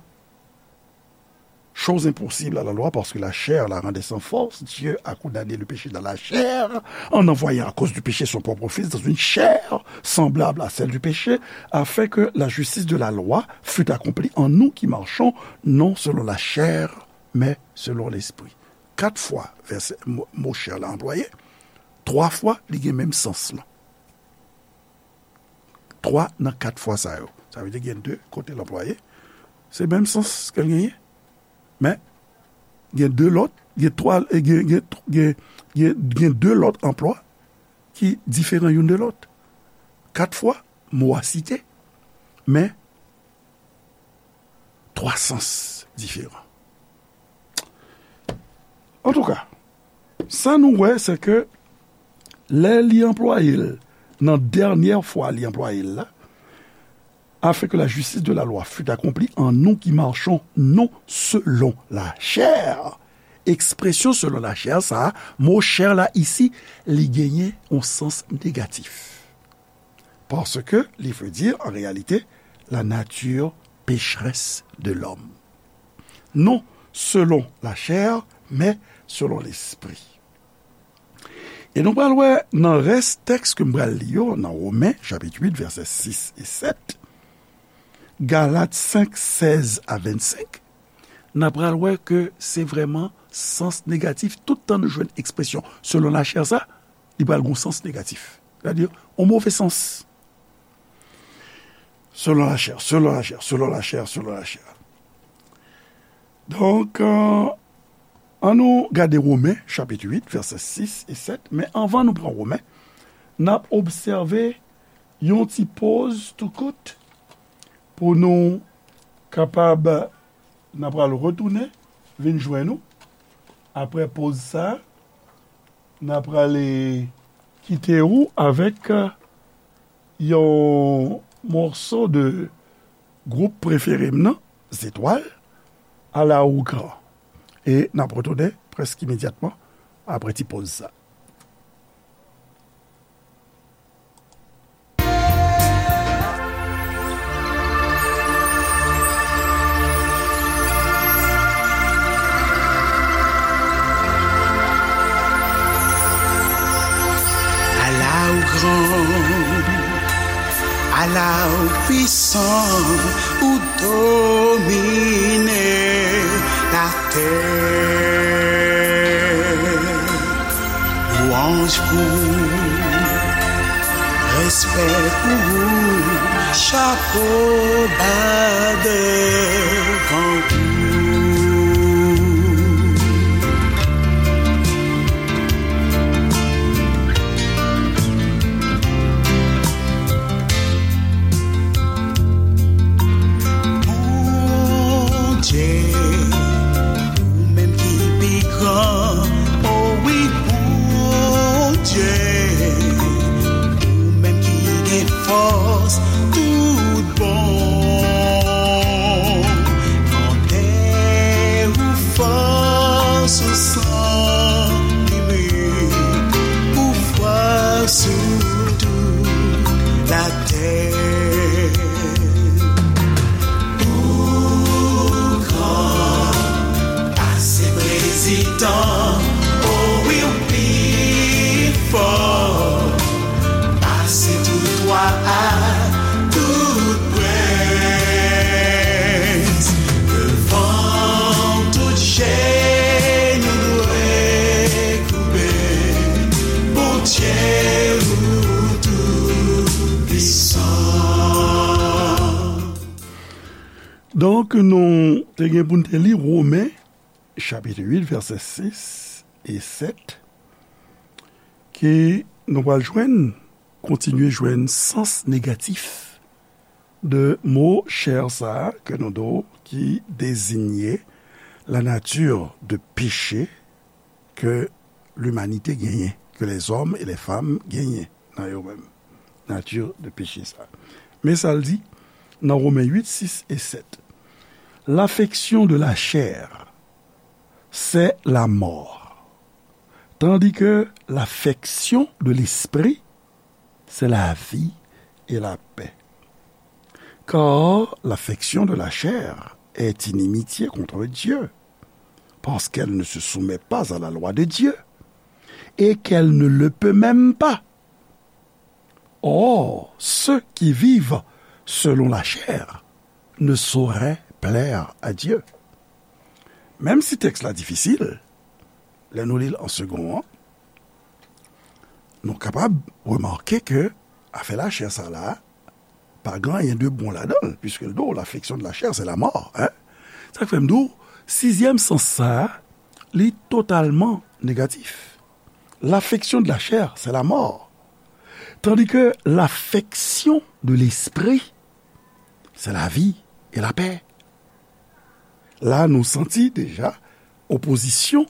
chose impossible à la loi, parce que la chair la rendait sans force. Dieu a condamné le péché dans la chair, en envoyant à cause du péché son propre Fils dans une chair semblable à celle du péché, afin que la justice de la loi fût accomplie en nous qui marchons non selon la chair, mais selon l'esprit. Kat fwa vèsè, mo, mo chair la anplwaye, twa fwa li gen menm sans lan. Twa nan kat fwa sa yo. Sa vle di gen de kote l anplwaye. Se menm sans ke l genyen. Men, gen de lòt, gen twa, gen, gen, gen, gen, gen de lòt anplwa ki diferan youn de lòt. Kat fwa, mo a site, men twa sans diferan. Antouka, sa nou wè, se ke lè li anplwaye l, nan dènyè fwa li anplwaye l la, afin que la justice de la loi fût accomplie en nous qui marchons non selon la chair. Ekspresyon selon la chair, sa a, mo chair la isi, li genyen yon sans negatif. Paske li vle di, an reyalite, la nature pécheresse de l'homme. Non selon la chair, mais selon l'esprit. E nou pral wè nan rès tèks ke m pral li yo, nan Women, chapit uit, vèsè sis e sèt, Galat senk, sèz a vennsenk, n a pral wè ke se vrèman sans negatif. Tout tan nou jwenn ekspresyon selon lachè sa, li pral gon sans negatif. Sètadi, yon move sans. Selon lachè, selon lachè, selon lachè, selon lachè. Donk, euh, ann nou gade Women, chapit uit, vèsè sis e sèt. Men anvan nou pran Women, n ap obsève yon ti poz tou kout pou nou kapab, n a pral retounen vin jwenn ou. Apre poz sa, n a prale kite ou avèk yon mòso de gwoup prefere m nan, Zetwal, Ala ou gran. E n ap retounen prèske imedyatman apre ti poz sa. Ala ou gran, ala ou pwisan, ou domine latè. Lwanj pou ou, respè pou ou, chapo ba devan ou. Bondye, ou menm ki pi gran, o wi, Bondye, ou menm ki gen fòs tout bon. Vante ou fòs ou san limit, ou fwa sou tout latè. Ou gran pase prezidan, o wi, ou pi fò pase tout wa ak tout prens. Devan tout jenou dwe koube, Bondye ou tou pwisan. Donk, nou te gen pou n te li Women, chapit uit, vèsè sis e sèt, ke nou pral jwenn, kontinye jwenn sans negatif de mo chè sa a ke nou do ki dezinye la nature de péché ke limanite genyen, ke lèzòm e lèfanm genyen nan yo menm. Nature de péché sa. Men sa l di nan Women uit, sis e sèt. L'affection de la chair, c'est la mort, tandis que l'affection de l'esprit, c'est la vie et la paix. Car l'affection de la chair est inimitié contre Dieu, parce qu'elle ne se soumet pas à la loi de Dieu, et qu'elle ne le peut même pas. Or, ceux qui vivent selon la chair ne sauraient plaire à Dieu. Menm si tèks la difisil, lè nou li l an segon an, nou kapab remake ke afè lachè sa la, pa gen anyen de bon ladan l, puisque l di w, l'affection de la chair, c'est la mort, hein? Sa k fè m di w, sizyèm sans sa, li totalman negatif. L'affection de la chair, c'est la mort. Tandis que l'affection de l'esprit, c'est la vie et la paix. La, nou santi deja opozisyon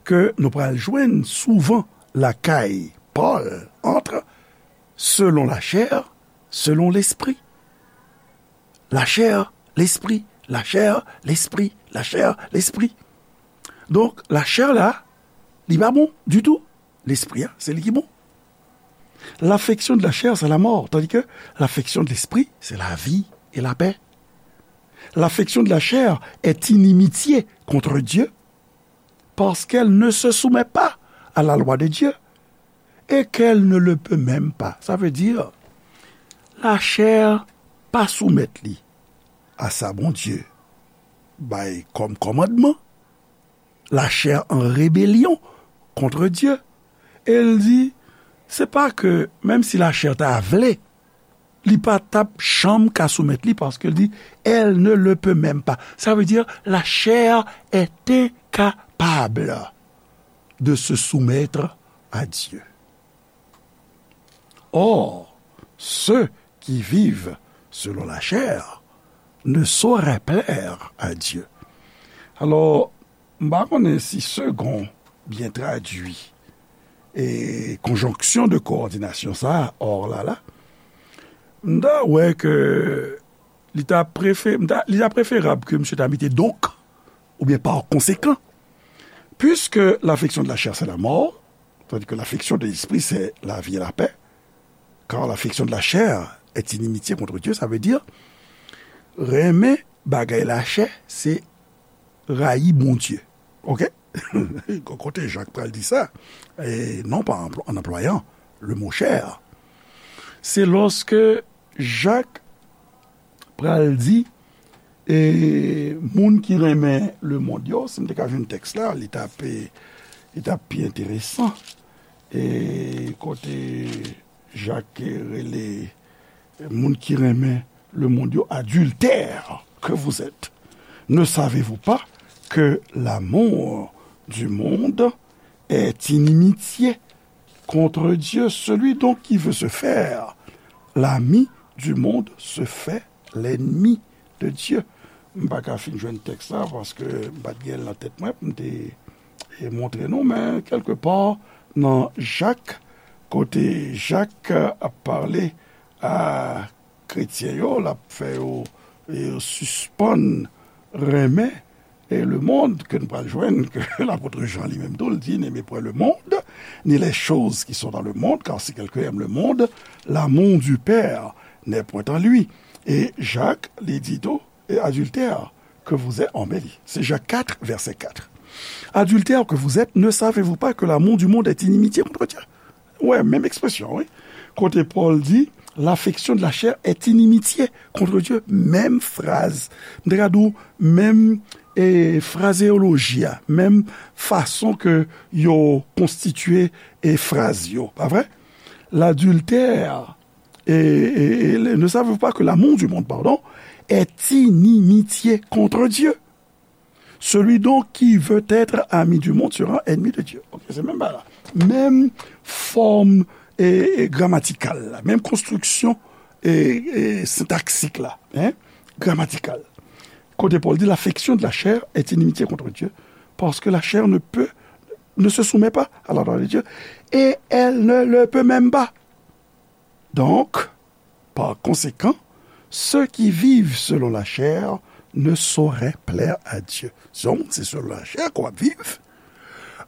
ke nou pral jwenn souvan lakay Pòl ant selon lachè, selon lespri. Lachè, lespri, lachè, lespri, lachè, lespri. Donk, lachè la, li pa bon ditou. Lespri a, se li ki bon. L'affection de la chair, c'est la mort, tandis que l'affection de l'esprit, c'est la vie et la paix. L'affection de la chair est inimitié contre Dieu, parce qu'elle ne se soumet pas à la loi de Dieu, et qu'elle ne le peut même pas. Sa vle di, lachè pa soumèt li a sa Bondye bay kòm kòmandman. Lachè an rebelyon kont Dye. E l di, se pa ke, menm si lachè ta vle, li pa t ap janm ka soumèt li, paske l di, elle ne le peut même pas. Ça veut dire, la chair est incapable de se soumettre à Dieu. Or, ceux qui vivent selon la chair ne sauraient plaire à Dieu. Alò, m pa konnen si segon byen tradui e konjonksyon de kowòdinasyon sa a, or la la, m ta wè ke li ta prefe-, m ta, li ta preferab ke misye ta mete donc, oubyen par conséquent, puisque l'affection de la chair, c'est la mort, tandis que l'affection de l'esprit, c'est la vie et la paix, car l'affection de la chair est inimitié contre Dieu, sa vle di, renmen bagay lachè, se rayi Bondye. Oke? Kote Jak pral di sa? E non pa anpl-, an anplwayan le mo chair. Se lòske Jak pral di, e, moun ki renmen lemonn yo, si m te ka jwenn tèks la, li t ap, li t ap pi enteresan. E kote Jak rele moun ki renmen lemonn yo, adultères que vous êtes, ne savez-vous pas que l'amour du monde est inimitié contre Dieu? Celui donc qui veut se faire l'ami du monde se fait l'ennemi de Dieu. M pa ka fin jwenn tèks la paske m pa t gen l nan tèt mwen pou m te, e, montre nou, men kèlkepa nan Jak, kote Jak ap pale a kretyen yo, l ap fè yo, e, sispann renmen, e, lemonn, ke n pral jwenn, ke lapot Jan li menm tou, l di, n'aimez point le monde, ni les choses qui sont dans le monde, car si quelqu'un aime le monde, l'amour du Père n'est point en lui. E Jak, li di tou, e, adultères que vous êtes, an bèl, se Jak kat, vèsè kat. Adultères que vous êtes, ne savez-vous pas que l'amour du monde est inimitié contre Dieu? Wè, menm ekspresyon, wi. Kote Pòl di, l'affection de la chair est inimitié contre Dieu. Menm fraz. M te ka di w, menm, e, frazeoloji a, menm fason ke yo konstitye, e, fraz yo. Pa vre? L'adultère, et, et, et ne savez-vous pas que l'amour du monde, pardon, est inimitié contre Dieu? Celui donc qui veut être ami du monde sera ennemi de Dieu. Ok, se menm bagay la. Menm fòm, e, e, gramatikal la, menm konstriksyon, e, e, sentaksik la, hein, gramatikal. Kote Pòl di, l'affection de la chair est inimitié contre Dieu, parce que la chair ne peut, ne se soumet pas à la loi de Dieu, et elle ne le peut même pas. Donc, par conséquent, ceux qui vivent selon la chair ne sauraient plaire à Dieu. Si w se selon lachè ke w ap viv,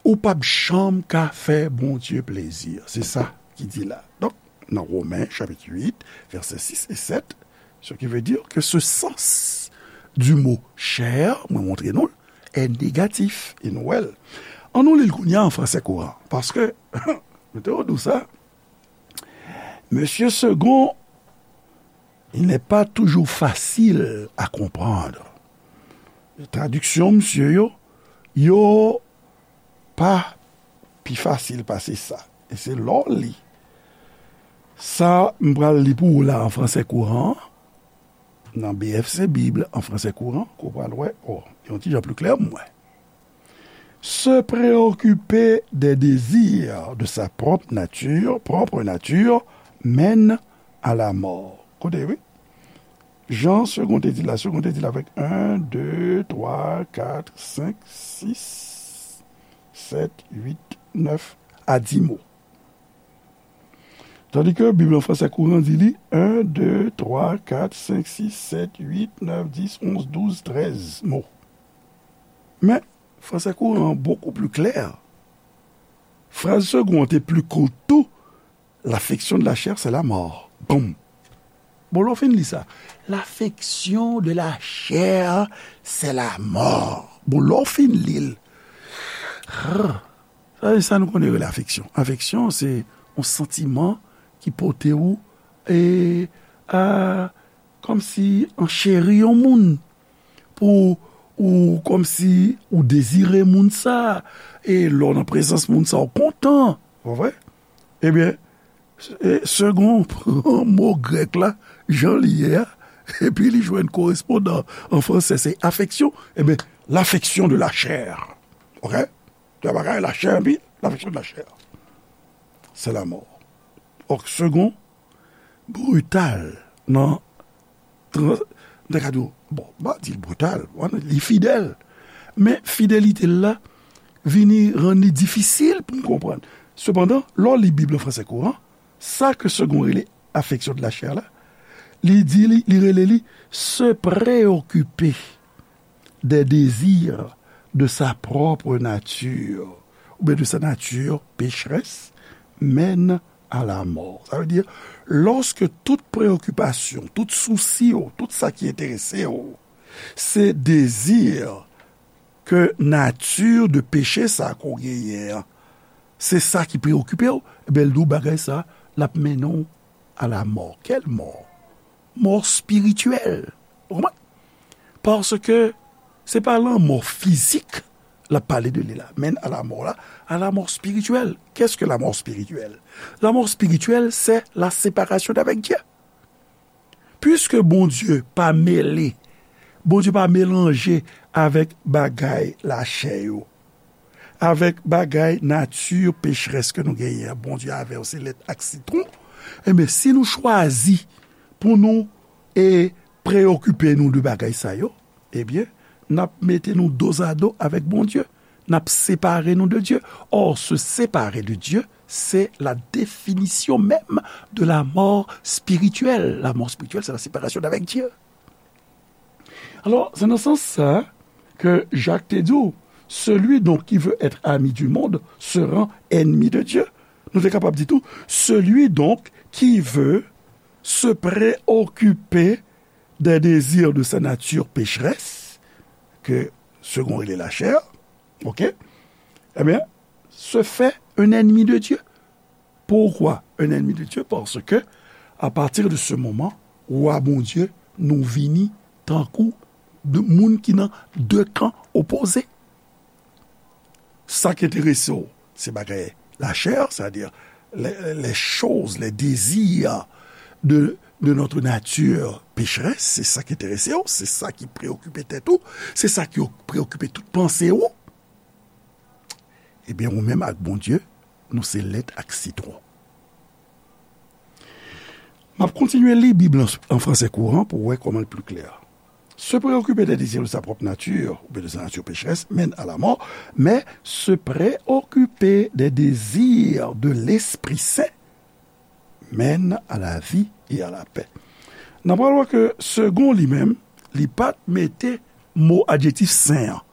ou p ap janm ka fè Bondye plezi. Se sa ki di la. Donk, nan Women, chapit uit, vèsè sis e sèt, ce qui veut dire que ce sens du mot chair, mwen montre nou l, est négatif. E nou wè l. Ann nou li l kounye a an fransè kouran. Paske, mete w dou sa, Mesye Segond, il n'est pas toujours facile à comprendre. Tradiksyon misye yo, yo pa pi fasil pase sa. E se lè w li sa m pral li pou ou la an fransè kouran, nan B F C Bib an fransè kouran, ke w pral wè, o, yon ti jan pli klè pou mwen. Se préoccuper des désirs de sa propre nature, propre nature, mène à la mort. Koute, wi. Jan Segond te di la, Segond te di la avèk en, de, twa, kat, senk, sis, sèt, uit, nèf, a dis mo. Tandis que Bib an fransè kouran di li en, de, twa, kat, senk, sis, sèt, uit, nèf, dis, onz, douz, trèz mo. Men, fransè kouran an bokou pli klè. Fraz Segond an te pli kout tou, l'affection de la chair, c'est la mort. Boum. Bon, lè w fin li sa. L'affection de la chair, c'est la mort. Bon, lè w fin li l. Sa, sa nou konnen rele afeksyon. Afeksyon, se yon santiman ki pote ou, e, a, kòmsi ancheri yon moun. Pou ou, kòmsi ou dezire moun sa, e lè w nan prezans moun sa, ou kontan. Pa vre? Ebyen, e, Segond pran mo grèk la, jan li ye a, epi li jwenn korespondan an fransè, se afeksyon. Ebyen, l'affection de la chair. Oke? Gen bagay, la chair, epi l'affection de la chair. C'est la mort. Òk Segond, brital nan tran-, nan kad yo, bon, m pa di l brital, li fidèl. Men fidelite l la vini rann li difisil pou n konprann. Sepandan, lè w li Bib an fransè kouran, sa ke Segond rele affection de la chair la, li di li, li rele li se preokipe des désirs de sa propre nature, oubyen de sa nature pécheresse, mène à la mort. Sa vle di, lòske tout preyokipasyon, tout sousi w, tout sa ki enterese w, se dezi ke nati de peche sa ke w genyen an, se sa ki preokipe w, ebyen, l di w bagay sa, l ap mennen w à la mort. Quelle mort? Mò espirityèl. Ou konprann? Paske se pa lanmò fizik l ap pale de li la. Men à la mort la, à la mort spirituelle. Qu'est-ce que la mort spirituelle? La mort spirituelle, c'est la séparation d'avec Dieu. Puiske Bondye pa mele, Bondye pa melanje avèk bagay lachè yo, avèk bagay nati pecherès ke nou genyen an, Bondye avè w se lèt ak sitwon, enben, si nou chwazi pou nou, e, preyokipe nou de bagay sa yo, ebyen, n ap mete nou dozado avèk Bondye. N ap separe nou de Dye. Or, se séparer de Dieu, c'est la définition même de la mort spirituelle. La mort spirituelle, c'est la séparation d'avec Dieu. Alò, se nan sans sa ke Jak te di w, celui donc qui veut être ami du monde se rend ennemi de Dieu. Nou te kapab di tou, celui donc qui veut se préoccuper des désirs de sa nature pécheresse, ke Segond rele lachè, oke? Ebyen, se fait un ennemi de Dieu. Pourquoi un ennemi de Dieu? Paske, à partir de ce moment, wa Bondye, nou vini tankou de moun ki nan de kan opoze. Sa ki enterese w, se bagay lachè, c'est-à-dire les, les choses, les désirs de, de notre nature pécheresse, se sa ki enterese w, se sa ki preokipe tèt ou, se sa ki preokipe tout panse ou. Ebyen, ou menm ak Bondye, nou se lèt ak sitwon. M ap kontinye li Bib lan an fransè kouran pou w wè kòman l pli klè. Se preokipe de dezi de sa pwòp nati, oubyen de sa nati pecherès, mène à la mort, mais se préoccuper des désirs de l'Esprit Saint mène à la vie et à la paix. N ap pral wè ke Segond li menm, li pa t mete mo adjektif sen an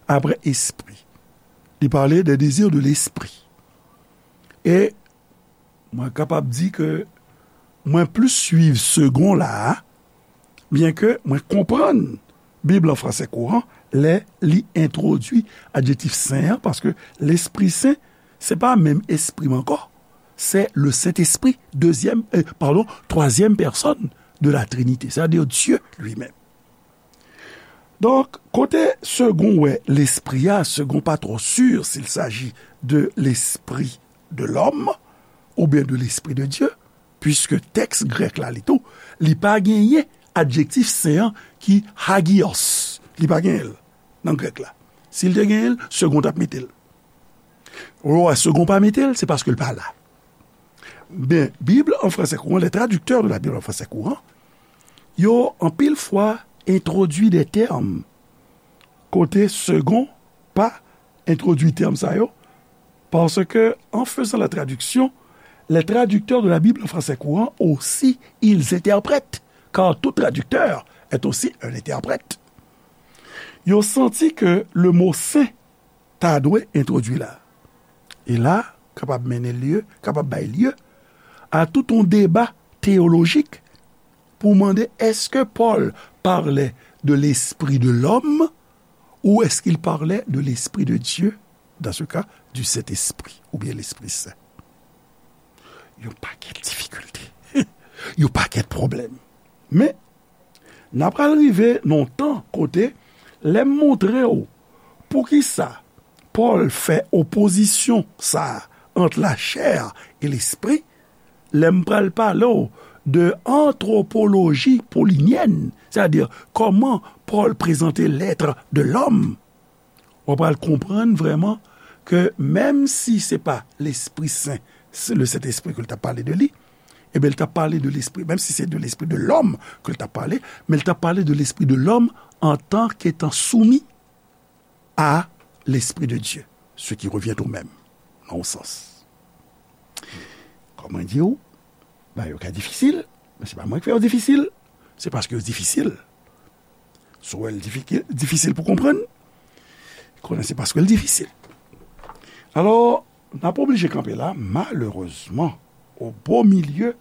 apre espri. Li pale de dezi de lespri. E mwen kapab di ke mwen plis swiv Segond la a, byenke mwen konprann Bib lan fransè kouran, lè li entwodui adjektif sen an, paske Lespri Sen, se pa menm espri m ankò, c'est le Saint-Esprit, deuxième, euh, pardon, troisième personne de la Trinité, c'est-à-dire Dieu lui-même. Donk, kote Segond wè Lespri a, Segond pa twò si s'il s'agit de l'esprit de l'homme oubyen de l'esprit de Dieu, puiske tèks grèk la, li tou, li pa genyen adjektif sen an ki hagios. Li pa genyen l nan grèk la. Si l te genyen l, Segond t ap mete l. Ou wè, Segond pa mete l, se paske l pa la. Ben, Bible en français courant, les traducteurs de la Bible en français courant, yo anpil fwa entwodui de tèm kote Segond pa entwodui tèm sa yo, parce que, en faisant la traduction, les traducteurs de la Bible en français courant aussi, ils interprètent, car tout traducteur est aussi un interprète. Yo santi ke le mo sen ta dwe entwodui la. E la, kapab mennen lye, kapab bay lye a tout yon deba teyolojik pou mande, est-ce que Paul parlait de l'esprit de l'homme ou est-ce qu'il parlait de l'esprit de Dieu, dans ce cas, du Saint-Esprit oubyen Lespri Sen? Yon pakèt difikilte. Yon pakèt pwoblèm. Men, n ap pral rive nan yon tan kote, lè m montre w poukisa Pòl fè opozisyon sa a ant lachè e lespri, lè m pral pale w de antwopoloji polinyèn, sètadi kòman Pòl prezante l'être de l'homme, w ap pral konprann vrèman ke menm si se pa Lespri Sen, se le Sentespri ke l t ap pale de li, ebyen, l t ap pale de lespri, menm si se de l'esprit de l'homme ke l t ap pale, men l t ap pale de l'esprit de l'homme en tant qu'étant soumis à l'Esprit de Dieu, ce qui revient au même, nan yon sans. Kòm mwen di w, bagay yo ka difisil, men se pa mwen ki fè yo difisil, se paske yo difisil. Si w wè l difiki-, difisil pou konprann, konnen se paske l difisil. Alò, n ap oblije kanpe la, malerezman, o bo milye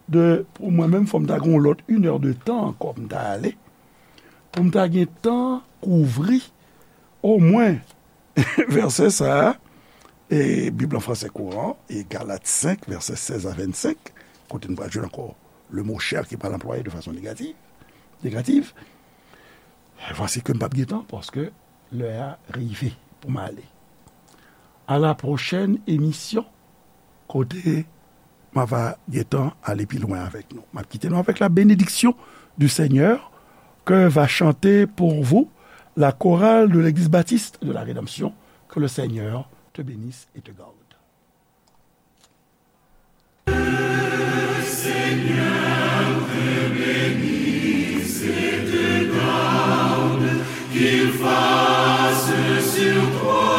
de, pou mwen menm, fò m ta gen yon lòt inè de tan ankò pou m ta ale, pou m ta gen tan kouvri omwen vèsè sa a, e Bib an fransè kouran, e Galat senk, vèsè sèz a vennsenk, kote n pral jwenn ankò le mo chair ki pral anplwaye de fason negatif, negatif. Vwasi ke m p ap gen tan, paske lè a rive pou m ale. À la prochaine émission, kote m a va gentan ale pi lwen avèk nou. M ap kite nou avèk la bénédiction du Seigneur, que va chanter pour vous la chorale de l'Église baptiste de la Rédemption. Que le Seigneur te bénisse et te garde. Qu'il fasse sur toi